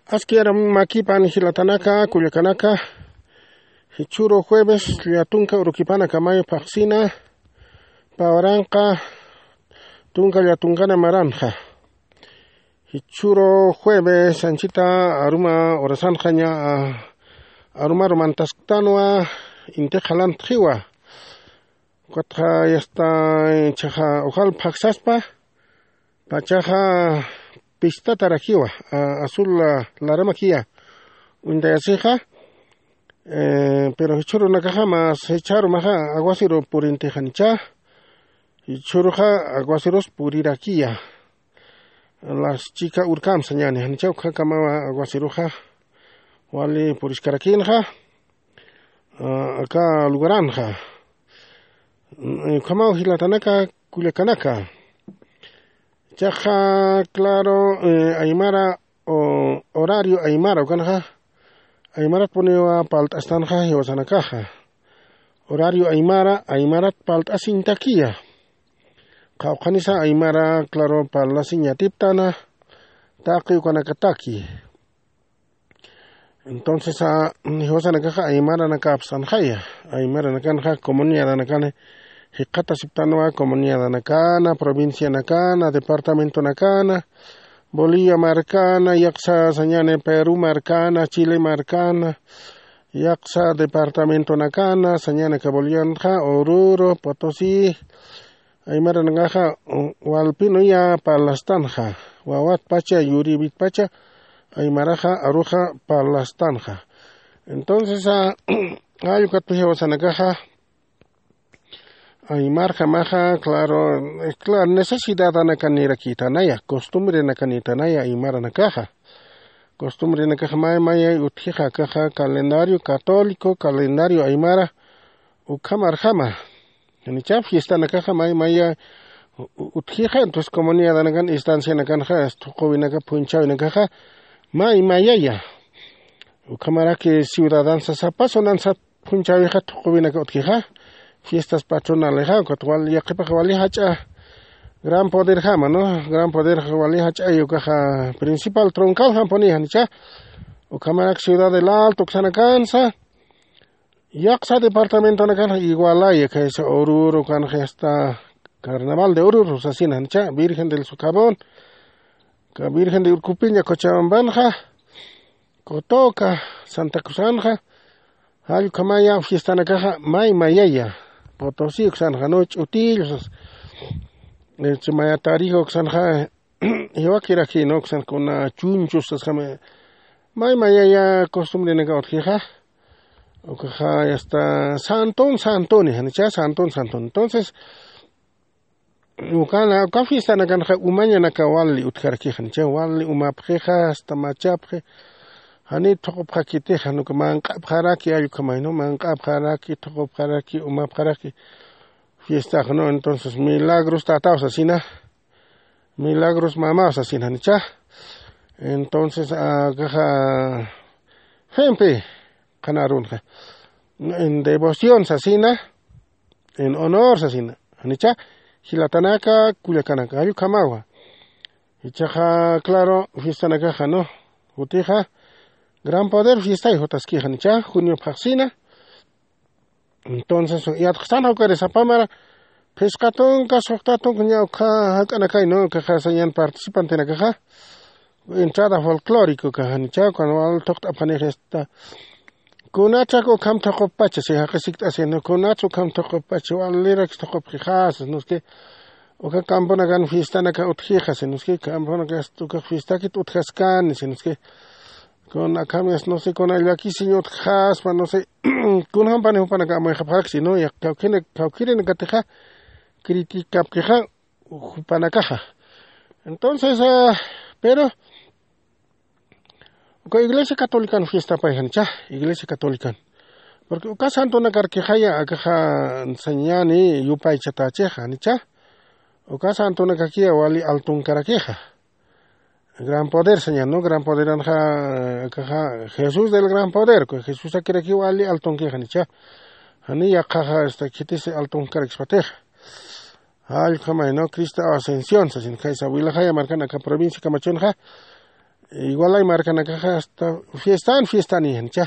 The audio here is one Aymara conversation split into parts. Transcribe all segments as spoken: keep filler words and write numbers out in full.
Aski aram makipan jilatanaka, kullakanaka, jichhüru jueves llatunka urukipanakamay phaxsina, pä uranqa tunka llatunkana maranxa. Jichhüru jueves anchita aruma urasanxaña, arumaru mantasktanwa inti qhalantxiwa. Ukatxa yasta, ichaxa ujal phaxsaspa, pachaxa pistatarakiwa, a-, azul la-, laramakiya uñtayasixa, eh, pero jichhürunakaxa mas jichharumaxa aguaceru purintixanicha, jichhüruxa aguacerus purirakiya. Las chika urkam sañani, janicha ukakamawa aguaceruxa wali puriskarakinxa, ah, aka lugaranxa. Mm, ukhamaw jilatanaka, kullakanaka. Chaxa, claro, eh, aymara, o, horario aymara, ukanxa, aymarat puniwa palt'astanxa jiwasanakaxa. Horario aymara, aymarat palt'asiñtakiya. Qawqhanisa aymara, claro, parlasiñ yatiptana, taqi ukanakataki. Entonces, a, jiwasanakaxa aymaranakapsanxaya, aymaranakanxa comunidadanakan jikxatasiptanwa, comunidadanakana, provincianakana, departamentonakana, Bolivia markana, yaqsa sañani Perú markana, Chile markana, yaqsa departamentonakana, sañanaka Bolivianxa, Oruro, Potosí, aymaranakaxa, u-, walpinuya parlastanxa, wawatpacha, yurïwitpacha, aymaraxa, aruxa parlastanxa. Entonces, a, jall ukat jiwasanakaxa, aymarjamaxa, claro, eh, claro, necesidadanakanirakitanaya, costumbrenakanitanaya, aymaranakaxa. Costumbrenakaxa may mayay utjixa, akaxa calendario católico, calendario aymara, ukhamarjama. Janicha fiestanakaxa may maya u-, u-, utjixa, entonces comunidadanakan, instancianakanxa, thuquwinaka, phunchhawinakaxa, may mayaya. Ukhamaraki ciudadansa, sapa zonansa phunchhäwixa thuquwinaka utjixa, fiestas patronalexa, ukat wal, yaqhipax wali jach'a gran poderjama, ¿no? Gran poder wali jach'a, ukaxa principal troncaljampuni, janicha. Ukhamarak Ciudad del Alto uksanakansa, yaqsa departamentonakanxa igualaya, kaysa Oruro kanxa, hasta Carnaval de Oruro sasina, janicha, Virgen del Socavón, ka Virgen de Urcupiña, Cochabambanxa, Cotoca, Santa Cruzanxa, jall ukhamaya fiestanakaxa may mayaya, Potosí uksanxa, ¿no? Ch'utillo sas, eh, chimaya Tarija uksanxa, jiwakiraki, ¿no? Uksan kuna chunchus sasjama, may mayaya costumbrenaka utjixa, ukaxa hasta santun santuni, janicha, santun santuni. Entonces, ukana, uka fiestanakanxa umañanaka wali utjarakixan, cha wali umapxixa, hasta machapxi, jani thuqupxakitixa, jan uka manq'apxaraki, jall ukhamay, ¿no? Manq'apxaraki, thuqupxaraki, umapxaraki fiestax, ¿no? Entonces, milagros tataw sasina, milagros mamaw sasina, janicha. Entonces, akaxa, jimpi, qhanarunxa, en devoción sasina, en honor sasina, janicha, jilatanaka, kullakanaka, jall ukhamawa. Ichaxa, claro, fiestanakaxa, ¿no? Jutixa, Gran Poder fiestay jutaskixanicha, junio phaxsina. Entonces, yatxasan jawkari sapamara, phisqa tunka, suxta tunka, ña ukha jak'anakay, ¿no? Ukaxa sañan participantenakaxa. Entrada folclórico ukaxa, janicha, cuando wal thuqt'apxanix esta. Kunatsa ukham thuquppacha, si jaqi sikt'asi, ¿no? Kunatsa ukham thuquppacha, walirak thuqupxixasa, ¿no? Es que, uka camponakan fiestanaka utjixasi, ¿no? Es que, camponaka, uka fiestakit utjaskani, si, ¿no? Es que, kuna akham, no sé, kuna llakisiñ utjxaspa, no sé, kunjampani jupanaka amuyxapxarakchi, ¿no? Ya, kawkhirinakatixa, criticapkixa, jupanakaxa. Entonces, ah, pero, uka Iglesia Catolican fiestapay janicha, Iglesia Catolican. Porque uka santonakarkixaya, akaxa sañani yupaychatächixa, janicha. Uka santonakakiya wali altunkarakixa. Gran Poder sañan, ¿no? Gran Poderanxa, akaxa Jesús del Gran Poder, Jesusakirakiw wali altunkixa, janicha. Jani yaqhaxa, este, khitisi altunkarakspatixa. Jall ukhamay, ¿no? Cristo Ascensión sasin, kaysa Vilajaya markan aka provincia Camachunxa, igualay markanakaxa hasta fiestan fiestani janicha.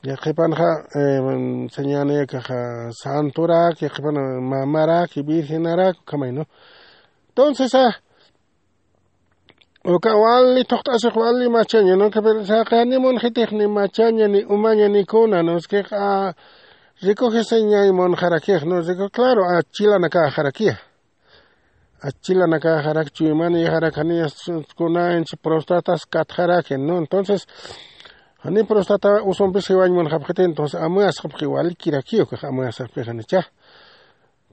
Yaqhipanxa, eh, sañani akaxa santorak, yaqhipan mamarak, virgenarak, ukhamay, ¿no? Entonces, ah, uka wali thuqt'asix wali machaña, ¿no? Pero saqi ni munxitix ni machaña, ni umaña, ni kuna, ¿no? Es que, ah, recoge señay munxarakix, ¿no? Rico, claro, ah, chilanakaxarakiya. Achilanakaxarak, chuymanïxarak, jani kunanchi prostatas katxaraki, ¿no? Entonces, jani prostata usumpis jiwañ munxapxiti, entonces, amuyasxapxi, walikirakiw ukax amuyasxapxi janicha.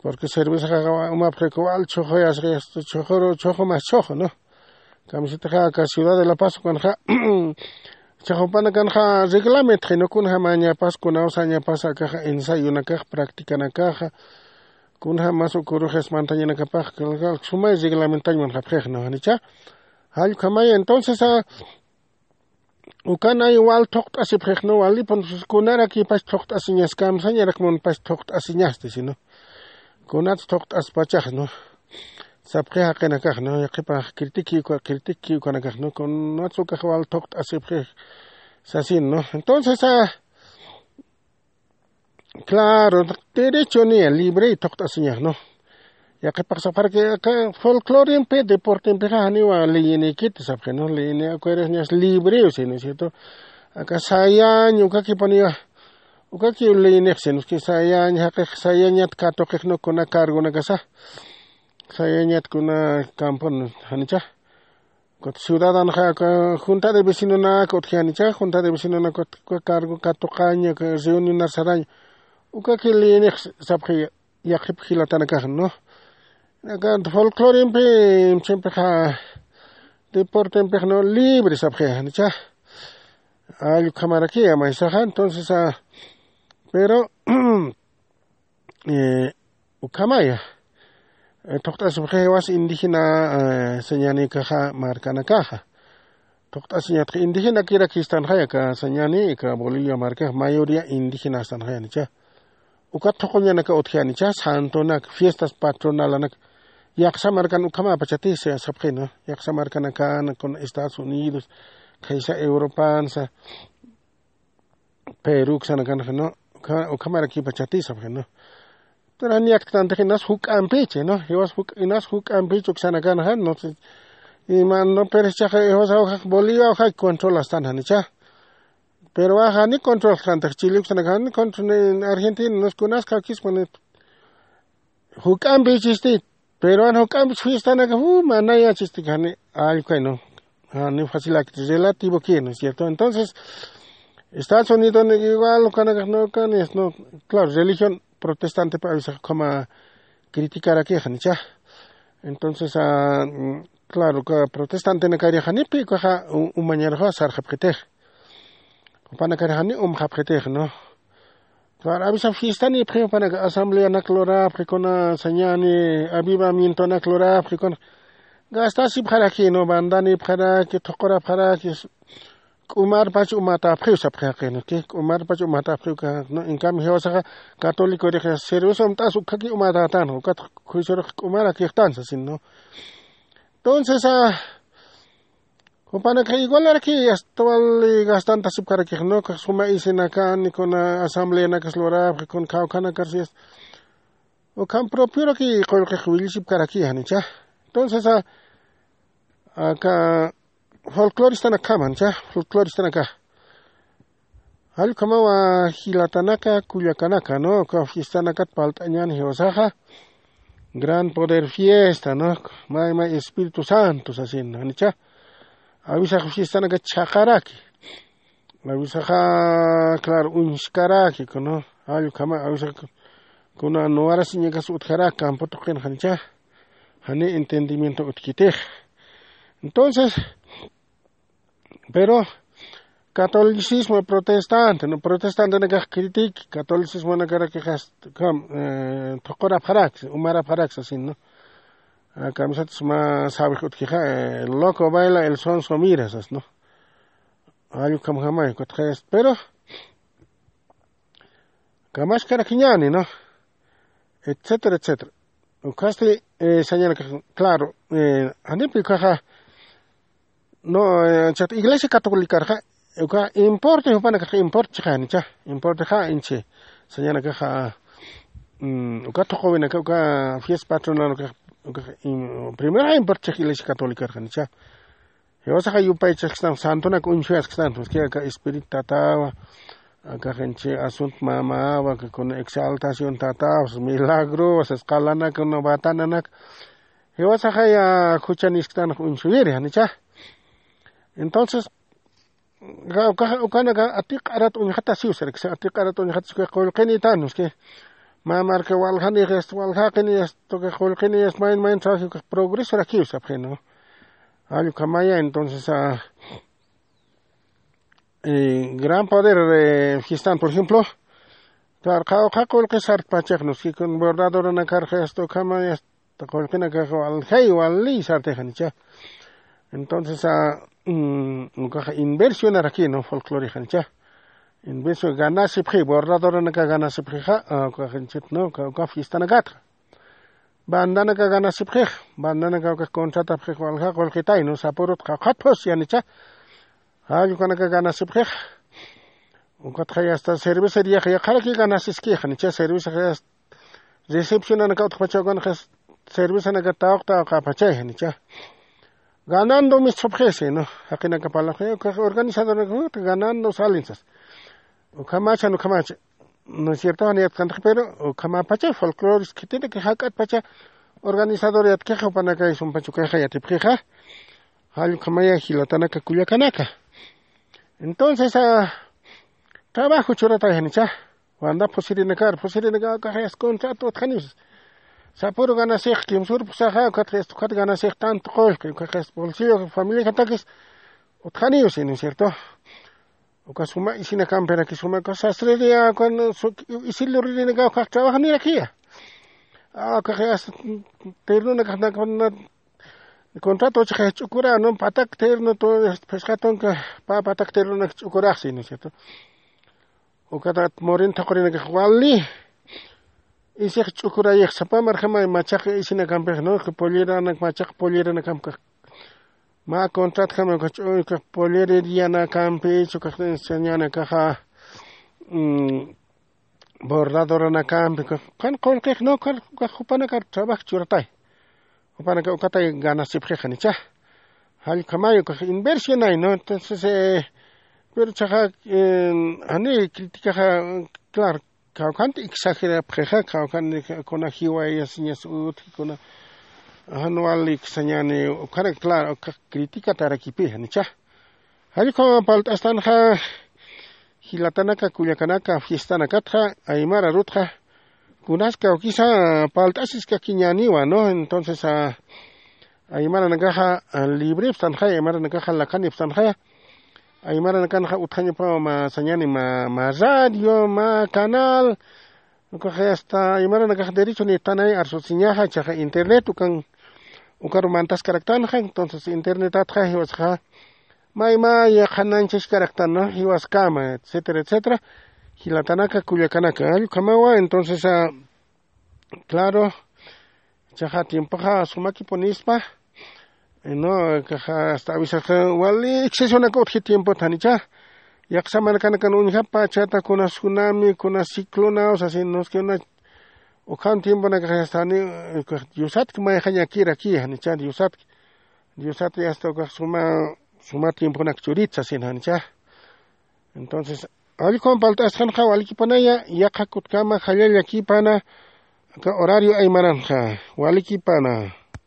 Porque cervezaxa umapxi wal chhuxuyasxi, chhuxuru, chhuxu mas chhuxu, ¿no? Kamisitaxa aka Ciudad de La Paz ukanxa, chhuxupanakanxa reglamentxi, ¿no? Kunjamañapas, kunawsañapas, akaxa ensayonakax, practicanakaxa, kunjamas ukurux espantañanakapax, sumay reglamentañ munxapxix, ¿no? Janicha, jallkhamaya. Entonces, ah, ukan ay wal thuqt'asipxix, ¿no? Walipun, kunarakipas thuqt'asiñas, kamsañarak munpas thuqt'asiñasti, sino kunats thuqt'aspachax, ¿no? Sapxi jaqinakax, ¿no? Yaqhipax critiqui uka, critiqui ukanakax, ¿no? Kunats ukax wal thuqt'asipxix sasin, ¿no? Entonces, ah, claro, derecho niya, libre thuqt'asiñax, ¿no? Yaqhipax sapxaraki aka folclorimpi, deportempixa janiwa leyinikiti sapxi, ¿no? Leyini acuerdas niya, libre, ¿sí, no es cierto? Aka sayañ, ukakipuniwa, ukakiw leyinix, ¿sí, no? Es que sayañ, jaqix sayañat katuqix, ¿no? Kuna cargonakasa. Sayañat kuna campon, janicha. Ukat ciudadanxa, aka junta de vecinonaka utji janicha, junta de vecinonaka ukat cargo katuqaña, reunionar saraña. Ukaki liyinix sapxi yaqhip jilatanakax, ¿no? Aka folclorimpi, chimpixa, deportempix, ¿no? Libre sapxi janicha. Allkhamaraki, maysaxa, entonces, ah, pero, eh, ukhamaya, eh, thuqt'asipxi jiwas indígena, eh, sañanïkaxa markanakaxa. Thuqt'asiñatxa indígenakirakistanxaya aka sañani, aka Bolivia markax mayoría indígenastanxaya janicha. Ukat thuquñanaka utji janicha, santonak, fiestas patronalanak. Yaqsa markan ukhamapachati sapxi, ¿no? Yaqsa markanakan, con Estados Unidos, khaysa Europansa, Perú, uksanakanxa, ¿no? Ukha-, ukhamarakipachatisapxi, ¿no? Entonces, jan yaktantix inas juk'ampichi, ¿no? Jiwas juk'a, inas juk'ampichi uksanakanxa, no sé. Ima, no, pero ichaxa, jiwas awjax Bolivia awjax controlastan janicha. Pero waxa ni controlxantix, Chile uksanakaxa ni control, ni Argentina, no sé, kunas kawkispa, ni juk'ampichisti, pero jan juk'ampich fistanaka, uh, manayachisti, jani, allkay, ¿no? Jani facilakiti, relativo que, ¿no es cierto? Entonces, Estados Unidos, ¿no? Igual, ukanakax, ¿no? Ukanis, ¿no? Claro, religión protestante pa avisax ukhama criticarakix janicha. Entonces, ah, mm, claro, uka protestantenakari janipi ukaxa u-, umañaruxa sarxapxitix. Jupanakari jani umxapxitix, ¿no? Claro, avisa fiestanipxi, jupanaka asambleanak lurapxi, kuna sañani, avivamientonak lurapxi, kuna gastasipxaraki, ¿no? Bandanipxaraki, thuqurapxaraki, k'umarpach umatapxiw sapxi jaqi, ¿no? K'i k'umarpach umatapxiw, ¿no? En cambio, jiwasaxa católicorix cerveza umt'as ukhaki umatätan, ukat juiciorux k'umarakixtan sasin, ¿no? Entonces, ah, jupanakax igualaraki, hasta wali gastantasipkarakix, ¿no? Suma isinakani, kuna asambleanakas lurapxi, kuna kawkhanakar, si es, ukham propioraki qullqix willisipkaraki janicha. Entonces, ah, aka folcloristanakxam janicha, folcloristanakax. Jall ukhamawa jilatanaka, kullakanaka, ¿no? Uka fiestanakat parlt'añäni jiwasaxa, Gran Poder Fiesta, ¿no? May, may Espíritu Santo sasin, janicha. Awisax fiestanaka chhaqaraki. Awisaxa, claro, uñskaraki, ¿no? Jall ukhama, awisax kuna nuwarasiñakas utjaraki campo tuqin, janicha. Jani entendimiento utjkitix. Entonces, pero catolicismo protestante, ¿no? Protestantenakax critic, catolicismonakarakixas, kam, eh, thuqurapxaraksa, umarapxaraksa sasin, ¿no? Ah, kamisat suma sawix utjixa, eh, loco baila, el sonso mira sas, ¿no? Jall ukhamjamay, kutxayas, pero kamaskarakiñäni, ¿no? Etcétera, etcétera. Ukhasti, eh, sañanakax, claro, eh, janipi ukaxa, No, eh, chat iglesia catolicarxa uka importe jupanakax importe chiqanicha, importe ja inchi sañanakaxa. Uka tuqowinaka uka fiesta patronal uka uka primera importe chiq iglesia catolicarxanicha. Jiwasaxa yupaychaskistan santunak uñshuyaskistan, uski aka espíritu tatawa aka jinchi asunto mamawa kakuna exaltación tatawa milagro wasas qalanaka una batananak. Jiwasaxaya juchanisktan uñshuyiri janicha. Entonces ukanaka atiq'arat uñjatasiw sarakisa atiq'arat uñjatas uka qullqinitan uski. Mä marka waljanix esto waljaqini esto uka qullqini esto mayn mayn trabaji uka progresorakiw sapxinu. Jall ukhamaya entonces a gran poder fiestan por ejemplo. Claro qhawqha qullqi sartpachax nuski kun bordadoranakar esto ukhamaya qullqinakax waljay wali sartixanicha. Entonces a ukaxa inversionarakinu folclorixanicha. Inversión ganasipxi bordadoranaka ganasipxixa ukaxinchit no uka fiestanakatxa. Bandanaka ganasipxix bandanaka ukax contratapxix walja qullqitaynu sapurut qawqhat phus yanicha. Jall ukanaka ganasipxix. Ukatxay hasta cervecería yaqharaki ganasiskix janicha cerveza recepcionanaka utjpacha ukanxa cervezanaka tawq tawqapachay janicha. Ganando misthupxisi no. Jaqinaka parlapxi ukax organizadoranaka ganando salinsas. Ukhamachan ukhamacha no es cierto janiyatkantax pero ukhamapacha folclores khitinaka jak'atpacha organizador yatkixa jupanakay sumpacha ukayxa yatipxixa. Jall ukhamaya jilatanaka kullakanaka. Entonces a trabajo churatay janicha. Wanda phusirinakar phusirinaka ukaxayas contrato utjaniwsas. Sapuru ganasix kimsur phusaxa ukatxayas ukat ganasix tanto qullqi ukaxayas bolsillo familiajatakis utjaniwsi no es cierto. Uka suma isinakampiraki suma uka sasririya ukan isiluririnaka ukax trabajanirakiya. Ukaxayas tirnunakaxnakuna contrato chixay ch'ukura no patak terno phisqa tunka pa patak ternonak ch'ukuraxsi no es cierto. Ukatat morin thaqhurinakax wali isix ch'ukurayix sapa marjamay machaq isinakampix no polleranakamkax polleranakamkax. Mä contratjama ukax ch'uykax pollererianakampi chukax enseñanakaxa bordadoranakampi ukax qan qullqix no ukax jupanakar trabajo churatay. Jupanaka ukatay ganasipxixanicha. Jallkhamay ukax inversionay no entonces pero chaxa jani criticaxa claro kawkhanti exagerapxixa kawkhan kuna jiwayasiñas utji kuna jan wali iksañani ukharak claro ukax criticatarakipixanicha. Jallkhama palt'astanxa jilatanaka kullakanaka fiestanakatxa aymara rutxa kunas kawkisa palt'asiskakiñäniwa no entonces aymaranakaxa librepstanxaya aymaranakaxa lakanipstanxaya. Aymaranakanxa utjañapawa mä sañani mä radio mä canal ukaxa asta aymaranakax derecho nitanay arsusiñaxa chaxa internet ukan ukaru mantaskaraktanxa entonces internetatxa jiwasxa maymaya qhananchaskaraktan jiwaskama etcétera etcétera. Jilatanaka kullakanaka jallkhamawa entonces claro chaxa tiempoxa sumakipunispa no kaxa asta avisaxa wali excesonak utji tiempot janicha. Yaqsa markanakan uñjapa chata kuna tsunami kuna ciclonaw sasin noski una ukhan tiemponakaxa asta jani diosatki mayxañakiraki janicha diosatki diosatki asta ukax suma suma tiemponak churit sasin janicha. Entonces allkhuwan palt'asxanxa walikipanaya yaqha kutkama jallallakipana aka horario aymaranxa walikipana.